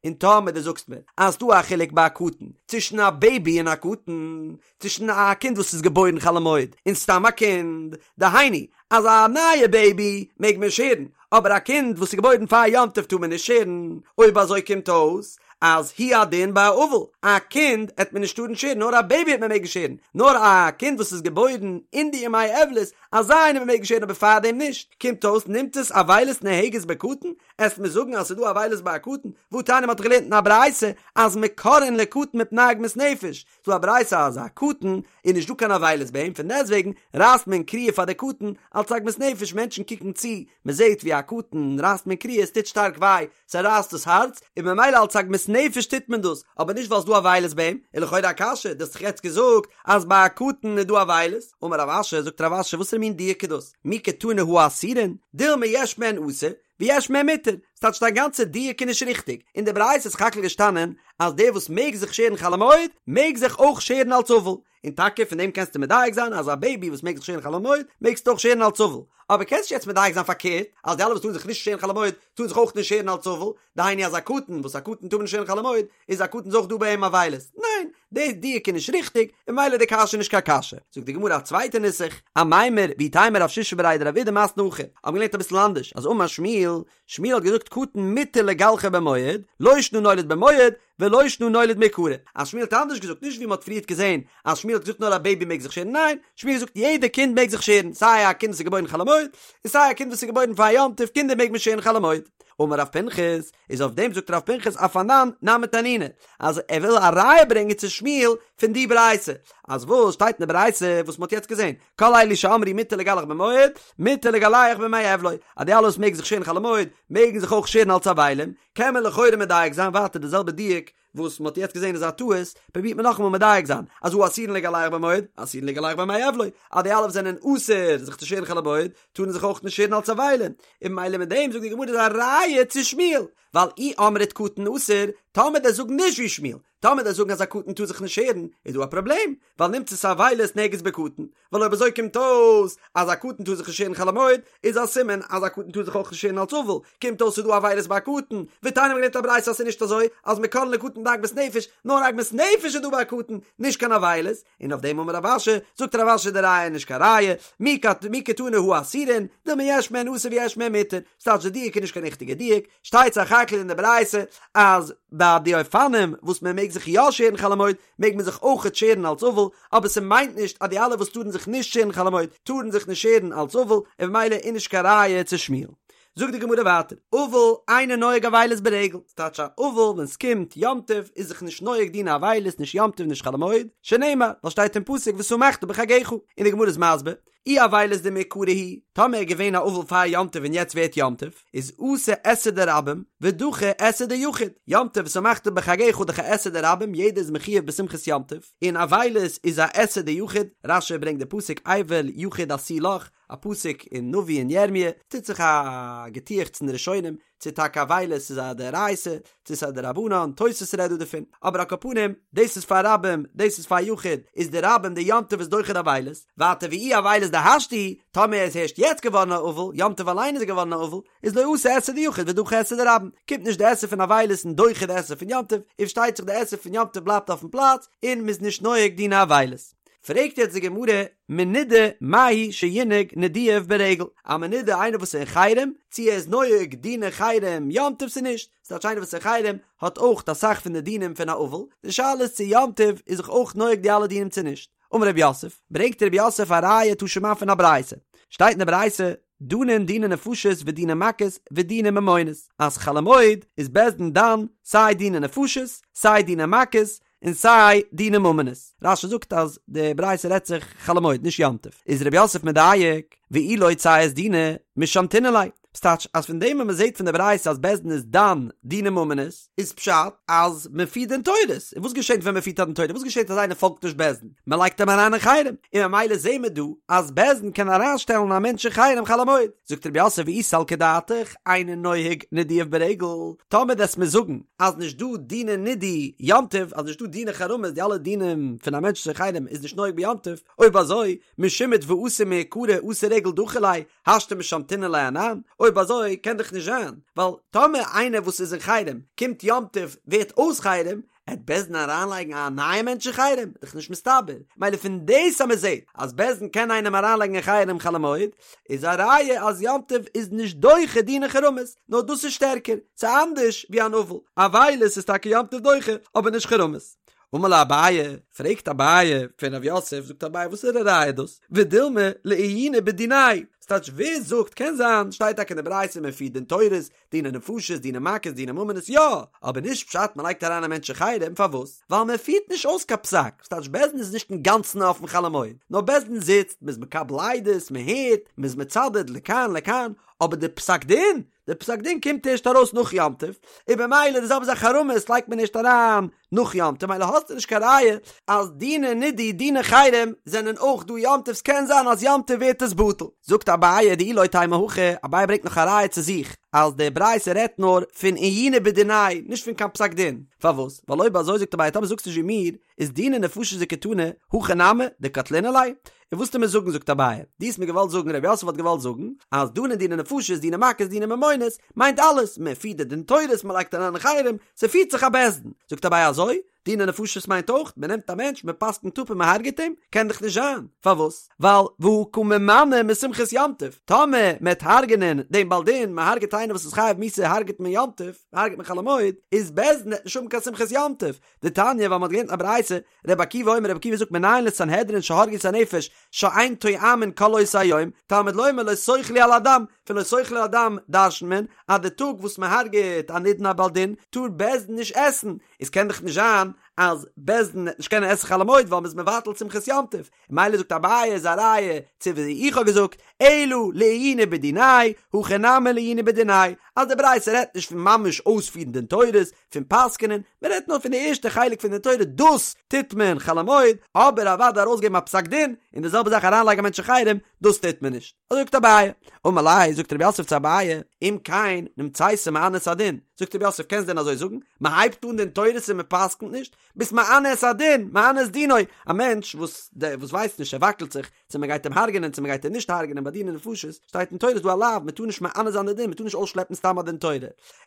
און טאמער דו זאגסט מיר אז ס'דא א חילוק ביי א קטן, צווישן א בעיבי און א קטן, צווישן א קינד וואס איז געבוירן חול המועד און סתם א קינד, דהיינו אז א נייע בעיבי מעג מען שערן, אבער א קינד וואס איז געבוירן פאר יום טוב טאר מען נישט שערן, אויב אזוי קומט אויס אז הוא הדין ביי א אבל, א קינד עט מען נישט טארן שערן נאר א בעיבי עט מען מעגן שערן, נאר א קינד וואס איז געבוירן אין די ימי אבלות. אזא איינער מעג מען שערן אבער פארדעם נישט, קומט אויס נמצאת אבילות נוהגת בקטן, עסט מיר זאגן אז ס'איז דא אבילות ביי א קטן, והתניא מ'האט דאך געלערנט אין א ברייתא אז מקרעין לקטן מפני עגמת נפש, ס'דא א ברייתא אז א קטן איז נישט דא קיין אבילות ביי אים פון דעסטוועגן רייסט מען קריעה פאר די קטן אלץ עגמת נפש מענטשן קוקן צו מ'זעט ווי א קטן רייסט מען קריעה עס טוט שטארק וויי ס'רייסט דאס הארץ און ממילא אלץ עגמת נפש טוט מען דאס אבער נישט ווייל ס'דא אבילות ביי אים איז לכאורה א קשיא דו האסט דאך יעצט געזאגט אז ביי א קטן איז דא אבילות אמר רב אשי זאגט רב אשי וואסערע מין דיוק איז דאס מי קתני הא אסורין דילמא יש מהן אסור ויש מהן מותר, ס'טייטש דיין גאנצע דיוק איז נישט ריכטיג, אין די ברייתא איז סך הכל געשטאנען אז דער וואס מעג זיך שערן חול המועד מעג זיך אויך שערן אלס אבל, און טאקע פון דעם קענסטו מדייק זיין אז א בעיבי וואס מעג זיך שערן חול המועד מעגסטו אויך שערן אלס אבל, אבער קענסט נישט יעצט מדייק זיין פארקערט אז די אלע וואס טארן זיך נישט שערן חול המועד טארן זיך אויך נישט שערן אלס אבל, דהיינו אז א קטן וואס א קטן טאר מען נישט שערן חול המועד איז א קטן איז אויך דא ביי אים אבילות, ניין, די דיוק איז נישט ריכטיג, און ממילא די קשיא איז נישט קיין קשיא. זאגט די גמרא א צווייטע נוסח, אמימר, ואיתימא רב שישא בריה דרב אידי מתני הכי, האבן געלערנט אביסל אנדערש, אז אמר שמואל, שמואל האט געזאגט קטן מותר לגלחו במועד, לא שנא נולד במועד, ולא שנא נולד מעיקרא. אז שמואל האט אנדערש געזאגט, נישט ווי מען האט פריערט געזען אז שמואל האט געזאגט נאר א בעיבי מעג זיך שערן, ניין, שמואל האט געזאגט יעדע קינד מעג זיך שערן, סיי א קינד וואס איז געבוירן חול המועד, און סיי א קינד וואס איז געבוירן פאר יום טוב, קינדער מעג מען שערן חול המועד. אמר רב פנחס, איז אויף דעם זאגט רב פנחס אף אנן נמי תנינא, אז ער וויל א ראיה ברענגען צו שמואל פון די ברייתא, אז וואס שטייט אין די ברייתא וואס מ'האט יעצט געזען, כל אלו שאמרו מותר לגלח במועד, מותר לגלח בימי אבלו, אז די אלע וואס מעגן זיך שערן חול המועד, מעגן זיך אויך שערן אלס אבלים, קען מען לכאורה מדייק זיין ווייטער די זעלבע דיוק וואס מ'האט יעצט געזען איז א טעות, פרובירט מען נאכאמאל מדייק זיין, אז הא אסורין לגלח במועד, אסורין לגלח בימי אבלו, אז די אלע וואס זענען אסור זיך צו שערן חול המועד, טארן זיך אויך נישט שערן אלס אבלים, און ממילא מיט דעם זאגט די גמרא איז א ראיה צו שמואל, ווייל אי אמרת קטן אסור, טאמער דו'סט זאגן נישט ווי שמואל, טאמער דו'סט זאגן אז א קטן טאר זיך נישט שערן, איז דא א פראבלעם, ווייל נמצאת אבילות נוהגת בקטן, ווייל אויב אזוי קומט אויס אז א קטן טאר זיך נישט שערן חול המועד, איז א סימן אז א קטן טאר זיך אויך נישט שערן אלס אבל, קומט אויס ס'איז דא אבילות ביי א קטן, ותניא מ'האט געלערנט א ברייתא אז ס'איז נישט אזוי אז מקרעין לקטן מפני עגמת נפש, נאר עגמת נפש איז דא ביי א קטן, נישט קיין אבילות, און אויף דעם אמר רב אשי, זאגט רב אשי די ראיה איז נישט קיין ראיה, מי קתני הא אסורין, דילמא יש מהן אסור ויש מהן מותר, ס'טייטש די דיוק איז נישט קיין ריכטיגע דיוק, שטייט סך הכל אין די ברייתא אז ביי די אופנים וואס מען מעג זיך יא שערן חול המועד מעג מען זיך אויכעט שערן אלס אבל, אבער ס'מיינט נישט אז די אלע וואס טארן זיך נישט שערן חול המועד טארן זיך נישט שערן אלס אבל, און ממילא איז נישט קיין ראיה צו שמואל. זאגט די גמרא ווייטער, אבל אינו נוהג אבילות ברגל, ס'טייטש א אבל ווען ס'קומט יום טוב איז זיך נישט נוהג דיני אבילות נישט יום טוב נישט חול המועד, שנאמר, ווייל שטייט אין פסוק ושמחת בחגך, און די גמרא איז מסביר, אי אבילות דמעיקרא הוא, טאמער איז געווען א אבל פאר יום טוב און יעצט ווערט יום טוב, איז אתי עשה דרבים ודחי עשה דיחיד, יום טוב ושמחת בחגך דאך א עשה דרבים יעדער איז מחויב בשמחת יום טוב, און אבילות איז א עשה דיחיד, רש"י ברענגט די פסוק אבל יחיד עשו לך, א פסוק אין נביא אין ירמיה, טוט זיך א געטועכץ אין די ראשונים, צו טאקע אבילות איז א דאורייתא, צו ס'איז א דרבנן, תוס' רעדט דא דערפון, אבער על כל פנים, דאס איז פאר רבים, דאס איז פאר יחיד, איז די רבים די יום טוב איז דוחה די אבילות, ווייטער ואי אבילות דהשתא הוא, טאמער ער איז הערשט יעצט געווארן א אבל, יום טוב אליין איז ער געווארן א אבל, איז לא אתי עשה דיחיד ודחי עשה דרבים, קומט נישט די עשה פון אבילות און דוחה די עשה פון יום טוב, און פארשטייט זיך די עשה פון יום טוב בלייבט אויפן פלאץ, און מ'איז נישט נוהג דיני אבילות. פרעגט יעצט די גמרא, מנודה מהו שינהג נידויו ברגל, א מנודה איינער וואס איז אין חרם, צו ער איז נוהג דיני חרם יום טוב צו נישט, ס'טייטש איינער וואס איז אין חרם האט אויך אסאך פון די דינים פון א אבל, די שאלה איז צו יום טוב איז זיך אויך נוהג די אלע דינים צו נישט. אמר רב יוסף, ברענגט רב יוסף א ראיה תא שמע פון א ברייתא, שטייט אין די ברייתא, דנין דיני נפשות ודיני מכות ודיני ממונות, אז חול המועד איז בית דין דן סיי דיני נפשות סיי דיני מכות, און סיי דיני ממונות. רש"י זאגט אז די ברייתא רעדט זיך חול המועד נישט יום טוב. איז רב יוסף מדייק, ואי לא ציית דינא משמתינן ליה. ס'טייטש אז פון דעם וואס מ'זעט פון די ברייתא אז בית דין איז דן דיני ממונות, איז פשט אז מ'פירט דין תורות. און וואס געשענט ווען מ'פירט א דין תורה? וואס געשענט אז איינער פאלגט נישט בית דין? מ'לייגט אים אריין אין חרם. און ממילא זעהן מיר דא אז בית דין קען אריינשטעלן א מענטש אין חרם חול המועד. זאגט רב יוסף ואי סלקא דעתך, אינו נוהג נידויו ברגל, טאמער דו'סט מיר זאגן אז נישט דא דיני נידוי יום טוב, אז נישט דא דיני חרמות, די אלע דינים פון א מענטש אין חרם איז נישט נוהג ביום טוב, אויב אזוי, משומט ואתי מעיקרא אתי רגל דחי ליה, השתא משמתינן ליה אנן, אויב אזוי קען דאך נישט זיין, ווייל טאמער איינער וואס איז אין חרם קומט יום טוב ווערט אויס חרם, עט בית דין אריינלייגן א נייע מענטש אין חרם? דאך נישט מסתבר. מילא פון דאס אז מען זעט אז בית דין קען איינעם אריינלייגן אין חרם חול המועד, איז א ראיה אז יום טוב איז נישט דוחה דיני חרמות, נאר דאס איז שטערקער, ס'איז אנדערש ווי אן אבל. אבילות איז טאקע יום טוב דוחה, אבער נישט חרמות. אמר ליה אביי, פרעגט אביי פון רב יוסף, זאגט אביי וואסערע ראיה איז דאס? ודילמא לעיוני בדיניה, ס'טייטש ווער זאגט, קען זיין, שטייט טאקע אין די ברייתא מען פירט דין תורות, דיני נפשות, דיני מכות, דיני ממונות, יא! אבער נישט פשט מען לייגט אריין א מענטש אין חרם, פארוואס? ווייל מען פירט נישט אויס קיין פסק, ס'טייטש בית דין איז נישט אינגאנצן אפן חול המועד, נאר בית דין זיצט, מען איז מקבל עדות, מען הערט, מען איז מצדד לכאן לכאן, אבער די פסק דין, די פסק דין קומט ערשט ארויס נאך יום טוב, און במילא די זעלבע זאך חרמות לייגט מען ערשט אריין נאך יום טוב, מילא האסטו נישט קיין ראיה אז דיני נידוי דיני חרם זענען אויך דא יום טוב, ס'קען זיין אז יום טוב ווערט עס בטל. זאגט אביי דאי לא תימא הכי, אביי ברענגט נאך א ראיה צו זיך אז די ברייתא רעדט נאר פון עיוני בדיניה נישט פון קיין פסק דין, פארוואס? ווייל אויב אזוי זאגט אביי טאמער זאגסטו נישט ווי מיר, איז דיני נפשות דקתני, הכי נמי, דקטלינן ליה, און וואס טו מיר זאגן זאגט אביי, דו האסט מיר געוואלט זאגן רב יוסף האט געוואלט זאגן אז דנין דיני נפשות דיני מכות דיני ממונות מיינט אלעס מען פירט די דין תורות מען לייגט אריין אין חרם ס'פירט זיך א בית דין זאגט אביי אזוי דיני נפשות מיינט אויך מען נעמט א מענטש מען פסק'נט אפ און מען הרג'עט אים קען דאך נישט זיין פארוואס ווייל והא קא ממנע משמחת יום טוב טאמער מען וועט הרג'ענען דעם בעל דין מען הרג'עט איינער וואס איז חייב מיתה הרג'עט מען יום טוב הרג'עט מען חול המועד איז בית דין וועט נישט האבן קיין שמחת יום טוב דתניא ווייל מען האט געלערנט א ברייתא רבי עקיבא אומר רבי עקיבא זאגט מנין לסנהדרין שהרגו את הנפש שאין טועמין כל אותו היום, תלמוד לומר לא תאכלו על הדם, פון לא תאכלו על הדם דרש'נט מען אז די טאג וואס מען הרג'עט א נידון א בעל דין טאר בית דין נישט עסן, איז קען דאך נישט זיין אז בית דין וועט נישט קענען עסן חול המועד ווייל מען איז מבטל שמחת יום טוב, מילא זאגט אביי איז א ראיה צו ווי איך האב געזאגט, אלא לעיוני בדיניה, הכא נמי לעיוני בדיניה, אז די ברייתא רעדט נישט פון ממש אויספירן דין תורות, פון פסק'נען, מען רעדט נאר פון די ערשטע חלק פון די תורה, דאס טוט מען חול המועד, אבער אוודאי ארויסגעבן א פסק דין, און די זעלבע זאך אריינלייגן א מענטש אין חרם, דאס טוט מען נישט. אזוי זאגט אביי. אמר ליה, זאגט רב יוסף צו אביי, אם כן, נמצאת מענה את הדין. זאגט רב יוסף, קענסט דען אזוי זאגן? מען הייבט אן דין תורות און מען פסק'נט נישט? ביסט מענה את הדין, מענה את דינו, א מענטש וואס וואס ווייסט נישט, ער וואקלט זיך, צו מען גייט אים הרג'נען צו מען גייט אים נישט הרג'נען ביי דיני נפשות, שטייט אין תורה איז דא א לאו, מען טאר נישט מענה זיין די דין, מען טאר נישט אויסשלעפן סתם א דין תורה.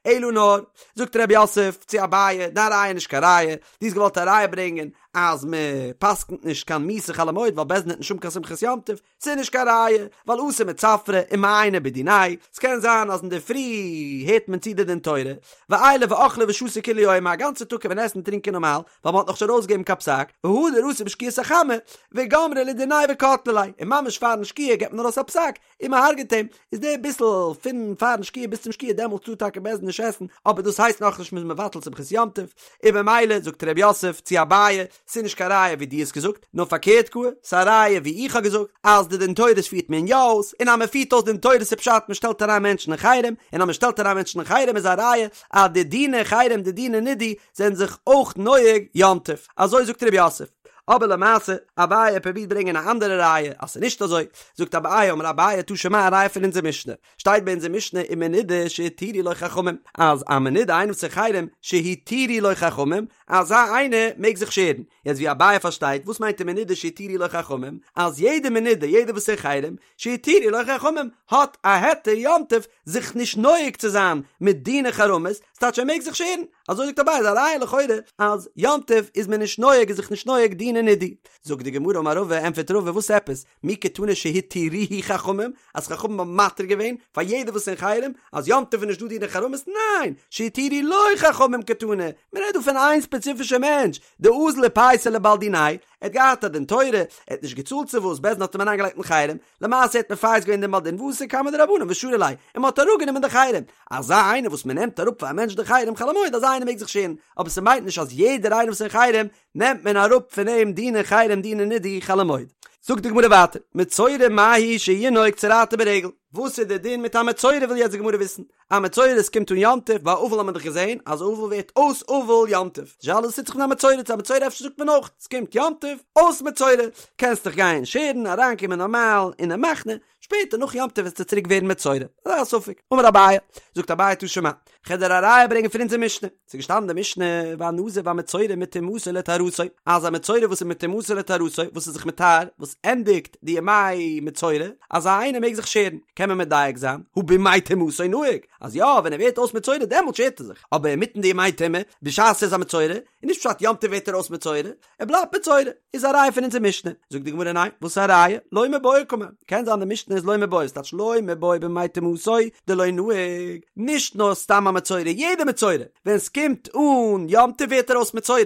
אלא נאר, זאגט רב יוסף צו אביי, דיין ראיה איז נישט קיין ראיה, דו האסט געוואלט א ראיה ברענגען אז מען פסק'נט נישט קיין מיתה חול המועד ווייל בית דין וועט נישט האבן קיין שמחת יום טוב, ס'איז נישט קיין ראיה, ווייל אתי מצפרא ומעייני בדיניה, ס'קען זיין אז אינדערפרי הערט מען צו די דין תורה, ועיילי ואכלי ושתו כולי יומא, א גאנצע טאג קען מען עסן און טרינקען נארמאל, ווייל מ'האט נאכנישט ארויסגעגעבן קיין פסק, והדר אתו בשקיעת החמה, וגמרי לדיניה וקטלי ליה, און ממש פארן שקיעה געבט מען ארויס א פסק, און מ'הרג'עט אים, איז די ביסל פון פארן שקיעה ביז צום שקיעה דעמאלטס טאר טאקע בית דין נישט עסן, אבער דאס הייסט נאכנישט מ'איז מבטל שמחת יום טוב, און במילא זאגט ר' יוסף צו אביי, ס'איז נישט קיין ראיה ווי דו האסט געזאגט, נאר פארקערט גאר, ס'איז א ראיה ווי איך האב געזאגט, אז די דין תורות פירט מען יא אויס, און אז מען פירט אויס דין תורות איז פשט מען שטעלט אריין מענטשן אין חרם, און אז מען שטעלט אריין מענטשן אין חרם איז א ראיה אז די דיני חרם די דיני נידוי זענען זיך אויך נוהג יום טוב. אזוי זאגט ר' יוסף. אבער למעשה, אביי פרובירט ברענגען א אנדערע ראיה אז ס'איז נישט אזוי, זאגט אביי אמר אביי תא שמע א ראיה פון אונזער משנה, שטייט ביי אונזער משנה ומנודה שהתירו לו חכמים, אז א מנודה איינער וואס איז אין חרם שהתירו לו חכמים, אזא איינער מעג זיך שערן. יעצט ווי אביי פארשטייט, וואס מיינט ומנודה שהתירו לו חכמים? אז יעדע מנודה, יעדער וואס איז אין חרם, שהתירו לו חכמים, האט א היתר יום טוב זיך נישט נוהג צו זיין מיט דיני חרמות, ס'טייטש ער מעג זיך שערן. אזוי זאגט אביי, איז א ראיה לכאורה אז יום טוב איז מען נישט נוהג איז זיך נישט נוהג דיני נידוי. זאגט די גמרא אמר רבא, ענטפערט רבא, וואס עפעס? מי קתני שהתירוהו חכמים, אז חכמים האבן מתיר געווען פאר יעדער וואס אין חרם, אז יום טוב איז נישט דא דיני חרמות, ניין! שהתירו לו חכמים קתני, מען רעדט דא פון איין ספעציפישע מענטש, דאזל ופייסיה לבעל דיניה, ער האט געהאט א דין תורה, ער האט נישט געצאלט צו וואס, בית דין האט אים אריינגעלייגט אין חרם, למעשה האט מפייס געווען דעם בעל דין ואתו קמי דרבנן ושרו ליה, און מען האט אראפגענומען די חרם, אזא איינער וואס מען נעמט אראפ פאר א מענטש די חרם חול המועד אזא איינער מעג זיך שערן, אבער ס'מיינט נישט אז יעדער איינער וואס אין חרם נעמט מען אראפ פון אים דיני חרם דיני נידוי חול המועד. זאגט די גמרא ווייטער, מצורע מהו שינהוג צרעתו ברגל, וואס איז די דין מיט א מצורע וויל יעצט די גמרא וויסן, א מצורע עס קומט אן יום טוב, ביי אבל האט מען דאך געזען אז אבל ווערט אויס אבל יום טוב, די שאלה איז וואס טוט זיך מיט א מצורע, צו א מצורע אפשר זאגט מען אויך, עס קומט יום טוב, אויס מצורע, קענסט דיך גיין שערן, אריינקומען נארמאל אינעם מחנה, שפעטער נאך יום טוב וועסטו צוריק ווערן מצורע, אזא ספק, אמר אביי, זאגט אביי תא שמע, כ'וועל דיר א ראיה ברענגען פון אונזער משנה, ס'איז געשטאנען אין די משנה, והנזיר והמצורע מטומאתו לטהרתו, אז א מצורע וואס איז מטומאתו לטהרתו, וואס איז זיך מטהר, וואס ענדיגט די ימי מצורע, אזא איינער מעג זיך שערן, קען מען מדייק זיין, הא בימי טומאתו נהיג, אז יא, ווען ער ווערט אויס מצורע דעמאלט שערט ער זיך, אבער אינמיטן די ימי טומאה, בשעת ער איז א מצורע, איז נישט פשט יום טוב ווערט ער אויס מצורע, ער בלייבט מצורע, איז א ראיה פון אונזער משנה. זאגט די גמרא ניין, וואס איז א ראיה? לא מיבעיא קאמר, קען זיין די משנה איז לא מיבעיא, ס'טייטש לא מיבעיא בימי טומאתו דלא נהיג, נישט נאר סתם א מצורע, יעדע מצורע, ווען ס'קומט אן יום טוב ווערט ער אויס מצורע.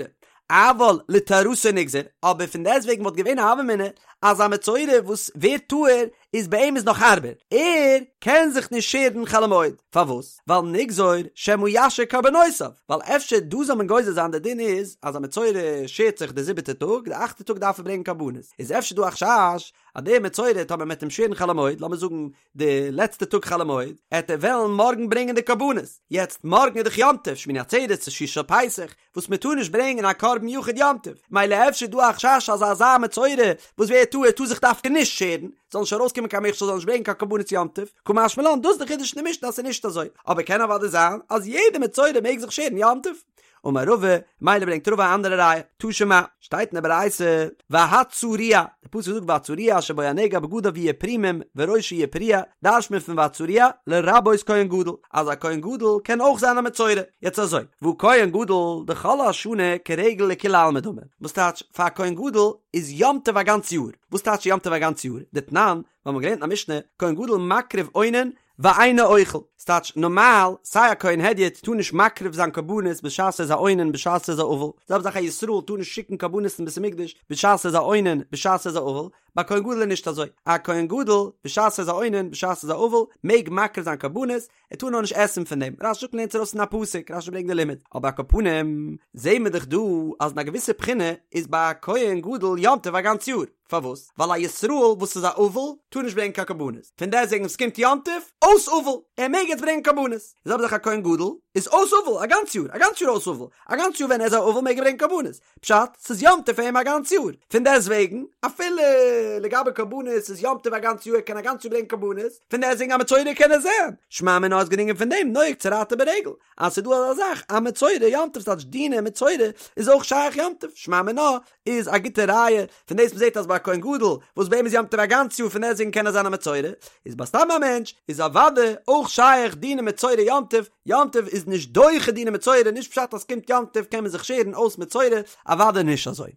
אבל לטהרתו נגזור, אבער פון דעסטוועגן וואלט געווען א הוה אמינא אז א מצורע וואס ווערט טהור איז ביי אים איז נאך הארבער, ער קען זיך נישט שערן חול המועד, פארוואס? ווייל נגזור שמא ישהה קרבנותיו, ווייל אפשר דא זאל מען גוזר זיין די דין איז אז א מצורע שערט זיך די זיבעטע טאג, די אכטע טאג דארף ער ברענגען קרבנות, איז אפשר דא א חשש אז דער מצורע טאמער מ'עט אים שערן חול המועד, לאמיר זאגן די לעצטע טאג חול המועד, עט ער וועלן מארגן ברענגען די קרבנות, יעצט מארגן איז דאך יום טוב, שמיני עצרת צו שביעי של פסח, וואס מען טאר נישט ברענגען א קרבן יחיד יום טוב, מילא אפשר איז דא א חשש אז אזא מצורע וואס ווערט טהור טאר זיך דווקא נישט שערן, זאל נישט ארויסקומען קיין מכשול זאל נישט ברענגען קיין קרבנות יום טוב, קא משמע לן דאס איז די חידוש אין די משנה אז ס'איז נישט אזוי, אבער קען אוודאי זיין אז יעדע מצורע מעג זיך שערן יום טוב. אמר רבא, מילא ברענגט רבא א אנדערע ראיה, תא שמע, שטייט אין די ברייתא, והצרוע, די פסוק זאגט והצרוע אשר בו הנגע בגדיו יהיו פרומים וראשו יהיה פרוע, דרש'ט מען פון והצרוע לרבות כהן גדול, אז א כהן גדול קען אויך זיין א מצורע, יעצט אזוי, והא כהן גדול דכל השנה כרגל לכולי עלמא דמי, וואס טייטש פאר א כהן גדול איז יום טוב א גאנץ יאר, וואס טייטש יום טוב א גאנץ יאר, דתנן, ווייל מ'האט געלערנט אין א משנה, כהן גדול מקריב אונן ואינו אוכל, ס'טייטש נארמאל, סיי א כהן הדיוט טאר נישט מקריב זיין קרבנות בשעת ער איז א אונן בשעת ער איז א אבל, זעלבע זאך א ישראל טאר נישט שיקן קרבנות אין בית המקדש בשעת ער איז א אונן בשעת ער איז א אבל, ביי כהן גדול איז נישט אזוי, א כהן גדול בשעת ער איז א אונן בשעת ער איז א אבל מעג מקריב זיין קרבנות, ער טאר נאר נישט עסן פון דעם, רש"י זאגט מ'לערנט עס ארויס פון א פסוק, רש"י ברענגט די לימוד, אבער על כל פנים זעהן מיר דאך דא אז אין א געוויסע בחינה איז ביי א כהן גדול יום טוב א גאנץ יאר. פארוואס? ווייל א ישראל וואס איז א אבל טאר נישט ברענגען קיין קרבנות, פון דעסטוועגן ווען ס'קומט יום טוב, אויס אבל, ער מעג יעצט ברענגען קרבנות, די זעלבע זאך א כהן גדול איז אויס אבל א גאנץ יאר, א גאנץ יאר אויס אבל, א גאנץ יאר ווען ער איז א אבל מעג ער ברענגען קרבנות, פשט, ס'איז יום טוב פאר אים א גאנץ יאר, פון דעסטוועגן אפילו לגבי קרבנות איז יום טוב א גאנץ יאר ער קען א גאנץ יאר ברענגען קרבנות, פון דעסטוועגן א מצורע קען ער זיין, שמע מינה איז געדרונגען פון דעם נוהג צרעתו ברגל, אז ס'איז דא אזא זאך א מצורע יום טוב ס'טייטש דיני מצורע איז אויך שייך יום טוב, שמע מינה איז א גוטע ראיה פון דאס מ'זעט אז ביי א כהן גדול וואס ביי אים איז יום טוב א גאנץ יאר פון דעסטוועגן קען ער זיין א מצורע, איז ביי סתם א מענטש איז אוודאי אויך שייך דיני מצורע יום טוב, יום טוב איז נישט דוחה דיני מצורע נישט פשט אז ס'קומט יום טוב קען מען זיך שערן אויס מצורע, אוודאי נישט אזוי.